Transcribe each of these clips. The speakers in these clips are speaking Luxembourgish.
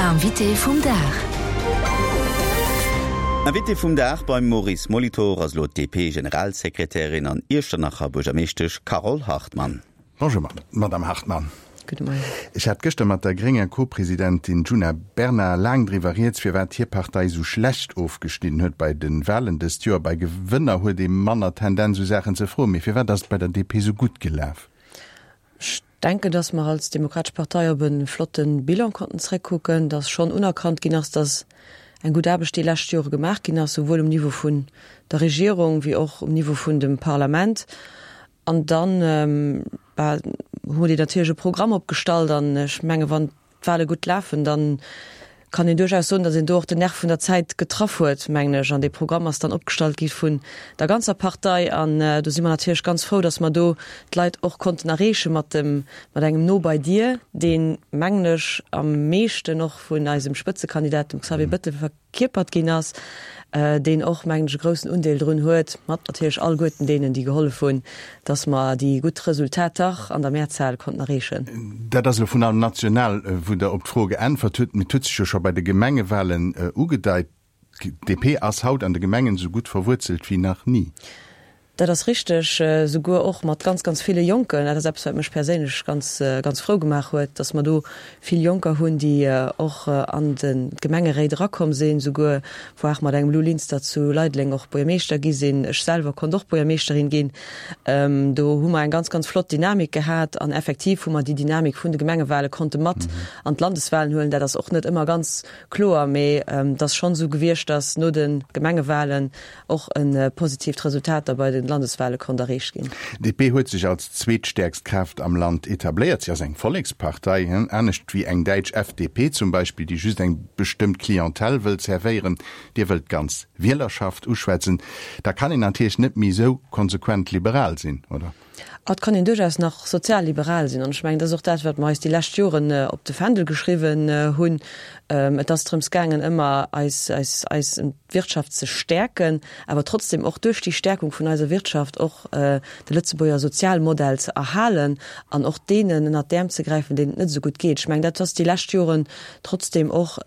Invité vum Dag. Invité vum Dag beim Maurice Molitor ass elo d'DP-Generalsekretärin an Iechternacher Buergermeeschtesch Carole Hartmann. Bonjour Madame Hartmann. Gudde Moien. Ech hat gëschter mat der grénger Co-Presidentin Djuna Bernard laang driwwer rieds, firwat hir Partei esou schlecht ofgeschnidden huet bei de Wahlen dëst Joer. Bei Gewënner huet ee manner Tendenz esou Saachen ze froen. Mee firwat ass et bei der DP esou gutt gelaf? Ech denken, datt mer als Demokratesch Partei op e flotte Bilan konnten zréckkucken, datt schonn unerkannt ginn ass, datt eng gutt Aarbecht déi lescht Jore gemaach ginn ass, souwuel um Niveau vun der Regierung wéi och um Niveau vun dem Parlament. An dann, bah, hu mer déi natierlech e Programm opgestallt an ech menge wann d'Wahle gutt lafen, dann kann een duerchaus soen, datt een do och den Nerv vun der Zäit getraff huet, mengen ech. An dee Programm ass dann opgestallt gi vun der ganzer Partei an do si mer natierlech ganz frou, datt mer do d'Leit och konnten erreeche mat dem, mat engem No bei dir, deen, mengen ech, am meeschten och vun eisem Spëtzekandidat, dem Xavier Bettel, Kierpert ginn ass, deen och, mengen ech, e groussen Undeel drun huet, mat natierlech alleguerten deenen, déi gehollef hunn, dass mer déi gutt Resultater an der Mehrzahl konnten erreechen. Dat ass elo vun allem national, wou Der op d'Fro geäntwert hutt. Mee et huet sech jo scho bei de Gemengewahlen ugedeit, d'DP ass haut an de Gemengen esou gutt verwuerzelt wéi nach ni. Dat ass richteg, souguer och mat ganz, ganz ville Jonken. Dat ass eppes, wat mech perséinlech ganz, ganz frou gemaach huet, dass mer do vill Jonker hunn, déi och an de d'Gemengeréit erakomm sinn, souguer voire mat engem Lou Linster zu Leideleng och Buergermeeschter gi sinn. Ech selwer konnt och Buergermeeschterin ginn. Do hu mer eng ganz, ganz flott Dynamik gehat an effektiv hu mer déi Dynamik vun de Gemengewale konnte mat an d'Landeswalen huelen. Dat ass och net ëmmer ganz kloer, mee et ass schonn esou gewiescht, dass no de Gemengewalen och e positiivt Resultat da bei de Landeswahle konnt erreecht ginn. DP huet sech als zweetstäerkst Kraaft am Land etabléiert. Si ass eng Vollekspartei, anescht wéi eng däitsch FDP zum Beispill, déi just eng bestëmmt Clientèle wëll servéieren. Dir wëllt d'ganz Wielerschaft uschwätzen. Da kann een natierlech net méi esou konsequent liberal sinn, oder? Et kann een duerchaus nach sozialliberal sinn. An ech mengen, dat ass och dat, wat mer eis déi lescht Joren op de Fändel geschriwwen hunn. Et ass drëms gaangen, ëmmer eis, eis, eis Wirtschaft ze stäerken, awer trotzdem och duerch déi Stärkung vun eiser Wirtschaft och de Lëtzebuerger Sozialmodell ze erhalen an och deenen ënnert d'Äerm ze gräifen, deenen et net esou gutt geet. Ech mengen, dat ass déi lescht Joren trotzdem och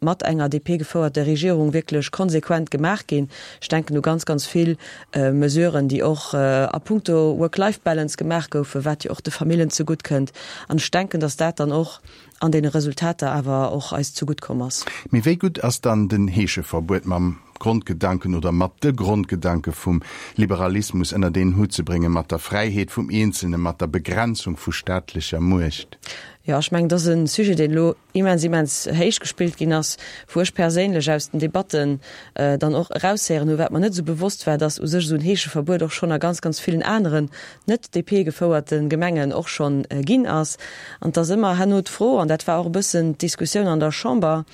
mat enger DP-gefouerter Regierung wierklech konsequent gemaach ginn. Ech denken u ganz, ganz vill Mesuren, déi och a puncto Work-Life-Balance gemaach goufen, wat jo och de Famillen zegutt kënnt. An ech denken, dass dat dann och an deene Resultater awer och eis zegutt komm ass. Mee wéi gutt ass dann den Heescheverbuet mam Grondgedanken oder mat de Grondgedanke vum Liberalismus ënnert een Hutt ze bréngen, mat der Fräiheet vum Eenzelnen, mat der Begrenzung vu staatlecher Muecht? Jo, ech mengen, dat ass e Sujet, deen elo immens, immens héich gespillt ginn ass, wou ech perséinlech aus den Debatten dann och eraushéieren hu wat mer net esou bewosst war, dass u sech esou en Heescheverbuet och schonn a ganz, ganz villen aneren net DP-gefouerte Gemengen och schonn ginn ass. An et ass ëmmer herno d'Fro, an dat war och e bëssen d'Diskussioun an der Chamber,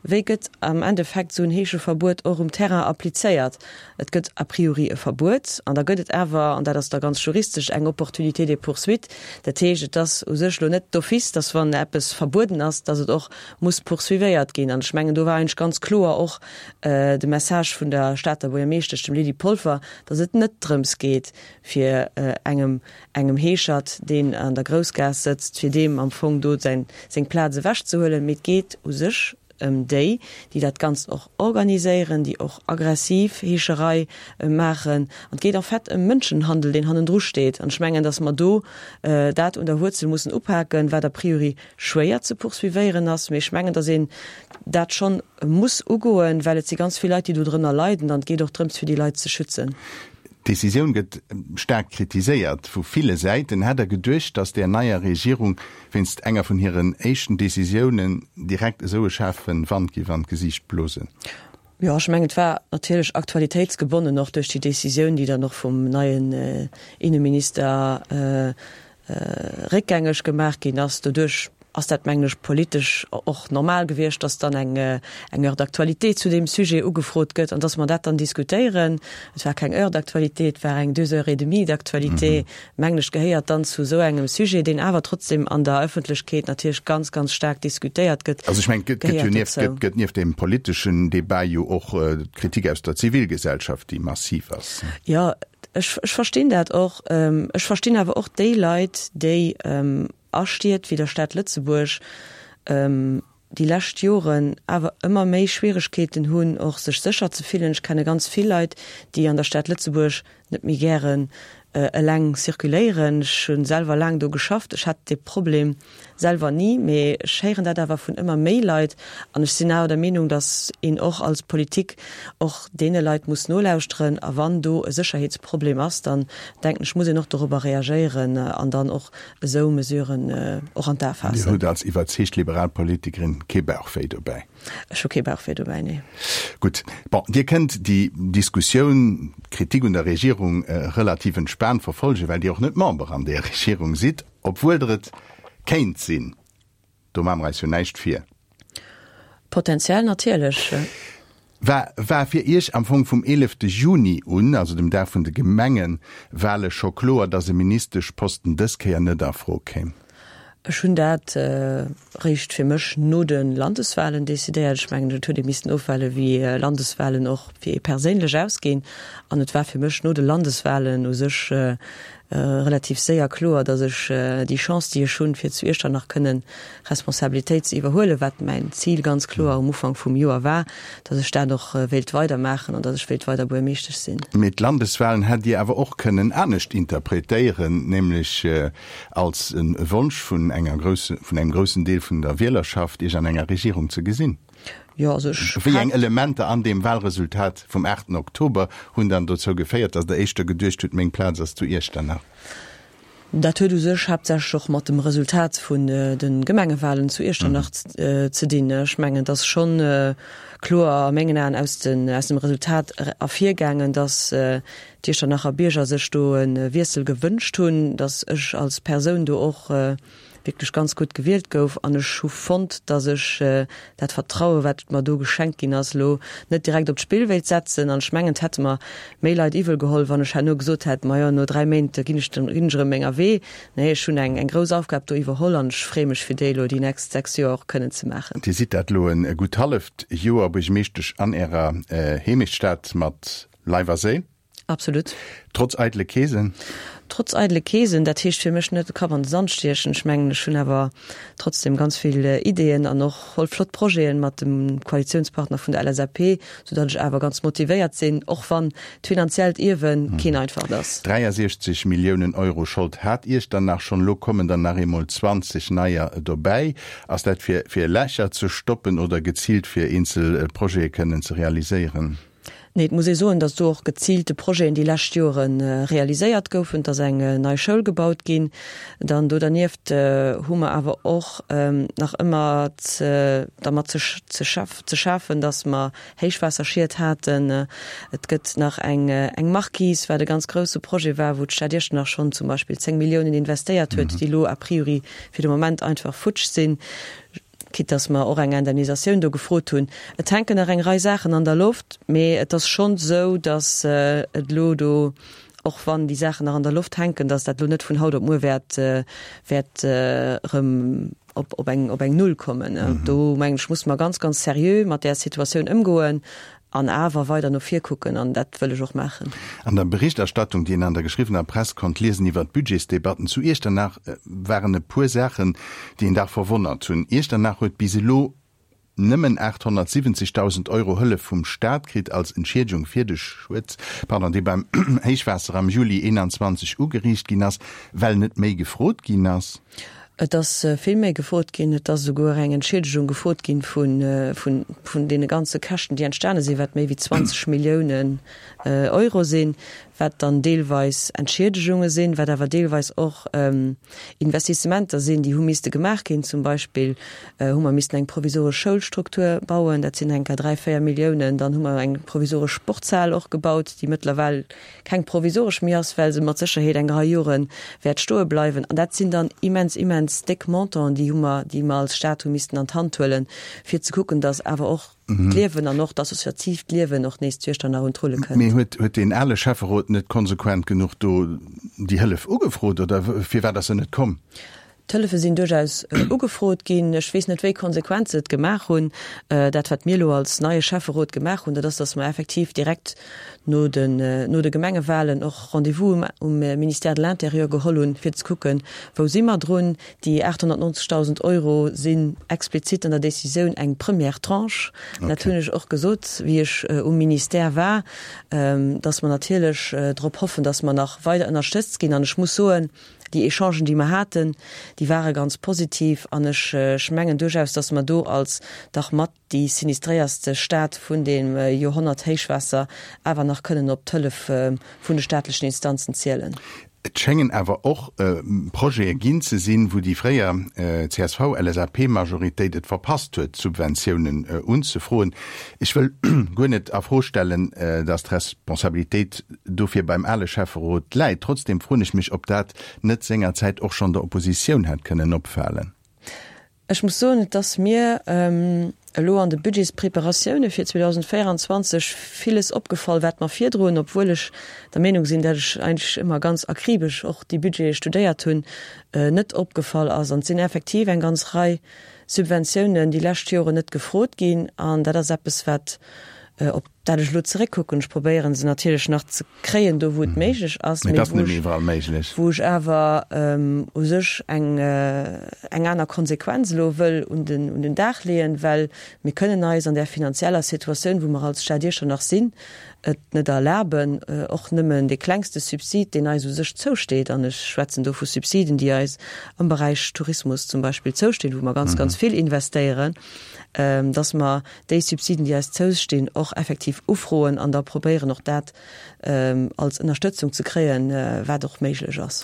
Wéi gëtt am Endeffekt esou en Heescheverbuet och um Terrain applizéiert? Et gëtt a priori e Verbuet an da gëtt et awer, an dat ass da ganz juristesch, eng Opportunité de poursuite. Dat heescht, et ass u sech elo net d'office, dass wann eppes verbueden ass, dass et och muss poursuivéiert ginn. An ech mengen, do war eigentlech ganz kloer och de Message vun der Stater Buergermeeschtesch, dem Lydie Polfer, dass et net drëms geet, fir engem engem Heeschert, deen an der Groussgaass sëtzt, fir deem am Fong do säin, seng Plaz ewechzehuelen, mee et geet u sech ëm déi, déi dat Ganzt och organiséieren, déi och aggressiv Heescherei maachen. An et geet en fait ëm Mënschenhandel, deen hannendru steet. An ech mengen, datt mer do dat un der Wuerzel mussen upaken, wat a priori schwéier ze poursuivéieren ass, mee ech mengen, datt een dat schonn muss ugoen, well et si ganz vill Leit, déi do drënner leiden an et geet och drëms, fir déi Leit ze schützen. D'Decisioun gëtt staark kritiséiert vu ville Säiten. Hätt Der geduecht, datt där neier Regierung wéinst enger vun hiren éischten Decisiounen direkt esou e schaarfe Wand géif an d'Gesiicht blosen? Jo, ech mengen, et war natierlech aktualitéitsgebonnen, och duerch déi Decisioun, déi dann och vum neien Inneminister réckgängeg gemaach ginn ass. Doduerch ass dat, mengen ech, politesch och normal gewiescht, dass dann eng eng Heure d'actualité zu deem Sujet ugefrot gëtt an dass mer dat dann diskutéieren. Et war keng Heure d'actualité, et war eng deux heures et demie d'actualité, mengen ech, gehéiert dann zu esou engem Sujet, deen awer trotzdem an der Öffentlechkeet natierlech ganz, ganz staark diskutéiert gëtt, Also ech mengen, et gëtt jo nieft, gëtt, gëtt nieft deem politeschen Débat jo och d'Kritik aus der Zivilgesellschaft, déi massiv ass. Jo, Ech, ech verstinn dat och. Ech verstinn awer och déi Leit, déi a Stied wéi der Stad Lëtzebuerg. déi lescht Joren awer ëmmer méi Schwieregkeeten hunn, och sech sécher ze fillen. Ech kenne ganz vill Leit, déi an der Stad Lëtzebuerg net méi gären eleng circuléieren. Ech hu selwer laang do geschafft, ech hat dee Problem selwer ni, mee ech héieren dat awer vun ëmmer méi Leit. An ech sinn awer der Meenung, datt een och als Politik och deene Leit muss nolauschteren. A wann do e Sécherheetsproblem ass, dann denken ech, muss een och dorobber reagéieren an dann och esou Mesuren och an d'A faassen. Dir hutt als iwwerzeegt liberal Politikerin kee Bauchwéi dobäi? Ech hu kee Bauchwéi dobäi, nee. Gutt. Bon, Dir kënnt déi Diskussioun, d'Kritik un der Regierung relativ entspaant verfolgen, well Dir och net Member an där Regierung sidd, obwuel Der et kéint sinn. Do maache mer eis jo näischt vir. Potenziell natierlech. War war fir Iech am Fong vum 11 Juni un, also dem Dag vun de Gemengewale scho kloer, datt e Ministeschposten dës Kéier net a Fro kéim? Ech hunn dat réischt fir mech no de Landeswalen decidéiert. Ech mengen, et huet ee missten ofwaarde wéi Landeswalen och fir ee perséinlech ausginn. An et war fir mech no de Landeswalen u sech relativ séier kloer, datt ech déi Chance, déi ech hunn, fir zu Iechternach kënnen Responsabilitéit ze iwwerhuelen, wat mäin Zil ganz kloer um Ufank vum Joer war, datt ech dat och wéilt weidermaachen an datt ech wéilt weider Buergermeeschtesch sinn. Mee d'Landeswahlen hätt Dir awer och kënnen anescht interpretéieren, nämlech als e Wonsch vun enger grousse, vun engem groussen Deel vun der Wielerschaft, Iech an enger Regierung ze gesinn. Jo, also ech Wéi eng Elementer an deem Wahlresultat vum 8 Oktober hunn dann dozou geféiert, datt Der éischter geduecht hutt, meng Plaz ass zu Iechternach? Dat huet u sech haaptsächlech och mat dem Resultat vun de Gemengewahlen zu Iechternach ze dinn. Ech mengen, et ass schonn kloer a mengen Aen aus dem Resultat ervirgaangen, datt d'Iechternacher Bierger sech do e Wiessel gewënscht hunn, datt ech als Persoun do och wierklech ganz gutt gewielt gouf an ech hu fonnt, datt ech dat Vertraue wat mer do geschenkt ginn ass, elo net direkt op d'Spill wéilt setzen. An ech mengen, et hätte mer méi Leit iwwel geholl, wann ech herno gesot hätt, majo no 3 Méint ginn ech ginn ech erëm menger Wee. Nee, ech hunn eng eng grouss Aufgab do iwwerholl an ech freeë mech fir déi elo déi nächst 6 Joer och kënnen ze maachen. Dir sidd dat elo e gutt halleft Joer Buergermeeschtesch an Ärer Heemechtsstad mat Leif a Séil. Absolut. Trotz eidele Keesen? Trotz eidele Keesen, dat heescht fir mech net de Kapp an de Sand stiechen. Ech mengen, ech hunn awer trotzdem ganz vill Ideeën an och voll flott Projeten mat dem Koalitiounspartner vun der LSAP, soudatt ech awer ganz motivéiert sinn, och wann d'finanziellt Ierwe keen einfacht ass. 63 Milliounen Euro Schold hat Iechternach schonn, elo kommen der nach eemol 20 neier dobäi. Ass dat fir fir Lächer ze stoppen oder geziilt fir eenzel Projete kënnen ze realiséieren? Nee, et muss ee soen, datt do och geziilte Projeten déi lescht Jore realiséiert goufen. Et ass eng nei Schoul gebaut ginn. Dann do dernieft hu mer awer och nach ëmmer dermat ze schafen, datt mer Héichwaasserschied haten. Et gëtt nach eng Marquise, wat e ganz grousse Projet war, wou d'Stad Iechternach schonn zum Beispill 10 Milliounen investéiert huet, déi elo a priori fir de Moment einfach futsch sinn. Quitte dass mer och eng Indemnisatioun do gefrot hunn. Et hänken nach eng Rei Saachen an der Loft, mee et ass schonn esou, dass et elo do, och wann déi Saachen nach an der Loft hänken, dass dat elo net vun haut op muer wäert, wäert erëm op, op eng, op eng Null kommen. Do mengen ech, musse mer ganz, ganz seriö mat där Situatioun ëmgoen An awer weider no vir kucken, an dat wëll ech och maachen. An der Berichterstattung, déi een an der geschriwwener Press konnt liesen iwwer d'Budgetsdebatten zu Iechternach, waren e puer Saachen, déi een dach verwonnert hunn. Iechternach huet bis elo nëmmen 870.000 Euro Hëllef vum Staat kritt als Entschiedegung fir de Schued, pardon, dee beim Héichwaasser am Juli 21 ugeriicht ginn ass, well net méi gefrot ginn ass. Et ass vill méi gefrot ginn. Et ass esouguer eng Entschiedegung gefrot ginn vun deene ganze Käschten, déi entstane sinn, wat méi wéi 20 Milliounen Euro sinn, wat dann deelweis Entschiedegunge sinn, wat awer deelweis och Investissementer sinn, déi hu misste gemaach ginn. Zum Beispill hu mer missten eng provisoresch Schoulstruktur bauen, dat sinn enker 3, 4 Milliounen. Dann hu mer eng provisoresch Sportshal och gebaut, déi mëttlerweil keng provisoresch méi ass, well se mat Sécherheet eng Rei Jore wäert stoe bleiwen. An dat sinn dann immens, immens déck Montanten, déi hu mer, déi mer als Stat hu missten an d'Hand huelen, fir ze kucken, datt awer och d'Liewen an och d'associatiivt Liewen och nees zu Iechternach un d'Rulle kënnt. Mee huet, huet deen ale Schäfferot net konsequent genuch do déi Hëllef ugefrot oder firwat ass se net komm? D'Hëllefe sinn duerchaus ugefrot ginn. Ech weess net, wéi konsequent se et gemaach hunn. Dat, wat mir elo als neie Schäfferot gemaach hunn, dat ass, datt mer effektiv direkt no den, no de Gemengewahlen och Rendez-vous um Ministère de l'Intérieur geholl hunn, fir ze kucken, wou si mer drun. Déi 890.000 Euro sinn explizit an der Décisioun eng première Tranche. Dat hunn ech och gesot, wéi ech um Ministère war, datt mer natierlech drop hoffen, datt mer nach weider ënnerstëtzt ginn. An ech muss soen, Déi Echangen, déi mer haten, déi ware ganz positiv an ech, ech mengen duerchaus, dass mer do als dach mat déi sinistréierste Stad vun deem Joerhonnert-Héichwaasser awer nach kënnen op d'Hëllef vun de staatlechen Instanzen zielen. Et schéngen awer och Projete ginn ze sinn, wou déi fréier CSV-LSAP-Majoritéit et verpasst huet, Subventiounen unzefroen. Ech wëll guer net a Fro stellen, dass d'Responsabilitéit dofir beim ale Schäfferot läit. Trotzdem froen ech mech, ob dat net sengerzäit och schonn der Oppositioun hätt kënnen opfalen. Ech muss soen, et ass mir elo an de Budgetspreparatioune fir 2024 villes opgefall, wat mer virdrun, obwuel ech der Meenung sinn, dat ech eigentlech ëmmer ganz akribesch och déi Budgete studéiert hunn, net opgefall ass. An et sinn effektiv eng ganz Rei Subventiounen déi lescht Joren net gefrot ginn. An dat ass eppes, wat op dat ech elo zeréckkucken, ech probéieren se natierlech nach ze kréien do wou et méiglech ass, mee wou ech, wou ech awer u sech eng eng aner Konsequenz elo wëll un den un den Dag leeën, well mir kënnen eis an där finanzieller Situatioun, wou mer als Stad Iechternach sinn, et net erlaben, och nëmmen dee klengste Subsid, deen eis u sech zousteet, an ech schwätzen do vu Subsiden, déi eis am Beräich Tourismus zum Beispill zoustinn, wou mer ganz, ganz vill investéieren, dass mer déi Subsiden, déi eis zoustinn, och effektiv ufroen an da probéieren, och dat als Ënnerstëtzung ze kréien, wat och méiglech ass.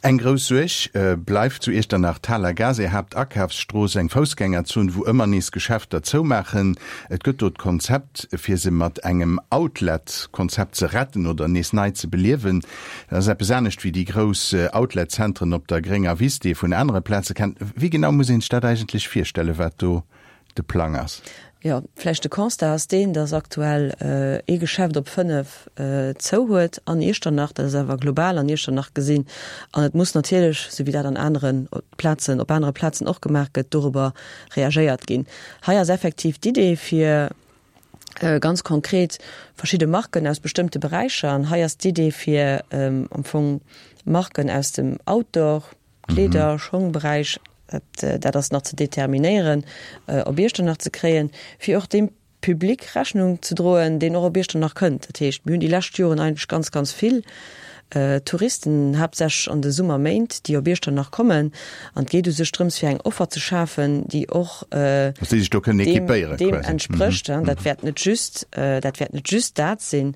Eng grouss Suerg bleift zu Iechternach d'Haler Gaass, är Haaptakafsstrooss, eng Foussgängerzon, wou ëmmer nees Geschäfter zoumaachen. Et gëtt do d'Konzept, fir se mat engem Outlet-Konzept ze retten oder nees nei ze beliewen. Dat ass eppes anescht wéi déi grouss Outlet-Zentren op der grénger Wiss, déi ee vun anere Plaze kennt. Wéi genau muss een sech dat eigentlech virstellen, wat do de Plang ass? Jo, vläicht de Constat ass deen, dass aktuell ee Geschäft op 5 zou huet an Iechternach. Dat ass awer global an Iechternach gesinn. An et muss natierlech, esou wéi dat an anere Plazen, op anere Plazen och gemaach gëtt, dorobber reagéiert ginn. Hei ass effektiv d'Idee fir ganz konkret verschidde Marken aus bestëmmte Beräicher. An hei ass d'Idee fir am Fong Marken aus dem Outdoor, Kleeder, Schongberäich, dat ass nach ze determinéieren, op Iechternach ze kréien, fir och deem Public Rechnung ze droen, deen och op Iechternach kënnt. Dat heescht, mir hunn déi lescht Joren eigentlech ganz, ganz vill Touristen, haaptsächlech an de Summerméint, déi op Iechternach kommen. An et geet u sech drëms, fir eng Offer ze schafen, déi och deem entsprécht. Dat wäert net just, dat wäert net just dat sinn,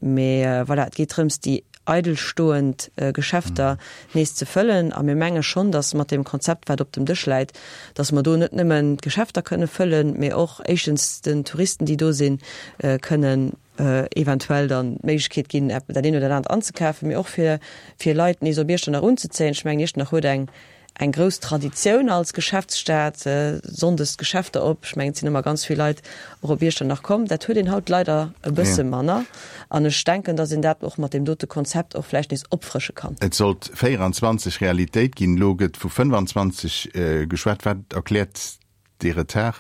mee voilà, et geet drëms, déi eidelstoend Geschäfter nees ze fëllen. A mir menge schonn, datt mat deem Konzept, wat op dem Dësch läit, datt mer do net nëmmen d'Geschäfter kënne fëllen, mee och éischtens den Touristen, déi do sinn, kënnen eventuell dann d'Méiglechkeet ginn, dat eent oder dat anert anzekafen, mee och fir fir Leit nees op Iechternach unzezéien. Ech mengen, Iechternach huet eng eng grouss Traditioun als Geschäftsstad, sonndes d'Geschäfter op. Ech mengen, et sinn ëmmer ganz vill Leit och op Iechternach komm. Dat huet een haut leider e bësse manner. An ech denken, datt een dat och mat deem dote Konzept och vläicht nees opfrësche kann. Et sollt 24 Realitéit ginn, elo gëtt vu 25 geschwat. Wat erkläert dee Retard?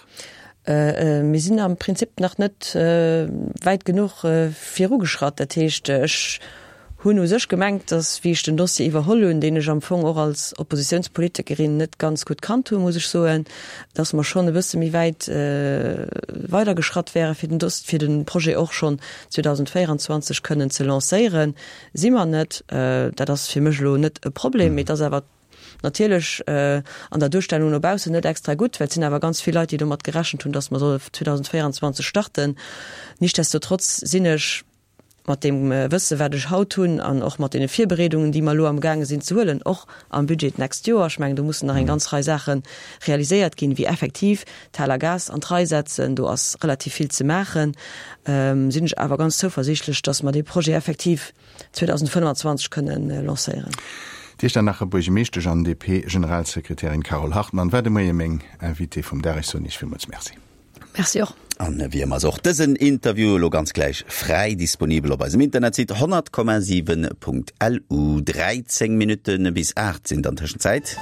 Mir sinn am Prinzip nach net wäit genuch virugeschratt. Dat heescht, ech hunn u sech gemengt, datt, wéi ech den Dossier iwwerholl hunn, deen ech am Fong och als Oppositiounspolitikerin net ganz gutt kannt hunn, muss ech soen, datt mer schonn e bësse méi wäit weidergeschratt wäre fir den Doss-, fir de Projet och schonn 2024 kënnen ze lancéieren. Si mer net. Dat ass fir mech elo net e Problem, mee et ass awer Natierlech an der Duerstellung no baussen net extra gutt, well et sinn awer ganz vill Leit, déi domat gerechent hunn, datt mer solle 2024 starten. Nichtsdestotrotz sinn ech mat deem Wësse wat ech haut hunn an och mat deene Virbereedungen, déi mer elo amgaange sinn ze huelen, och am Budget d'nächst Joer, ech mengen do mussen nach eng ganz Rei Saache realiséiert ginn, wéi effektiv d'Haler Gaass an d'Rei setzen, do ass relativ vill ze maachen, sinn ech awer ganz zouversiichtlech, datt mer dee Projet effektiv 2025 kënnen lancéieren. D'Iechternacher Buergemeeschtesch an DP-Generalsekretärin Carole Hartmann war de Moie meng Invitée vum Dag. Ech soen Iech villmools Merci. Merci och. An wéi ëmmer ass och dësen Interview elo ganz gläich fräi disponibel op eisem Internetsite 100,7.lu. 13 Minutte bis 8 sinn et an Tëschenzäit.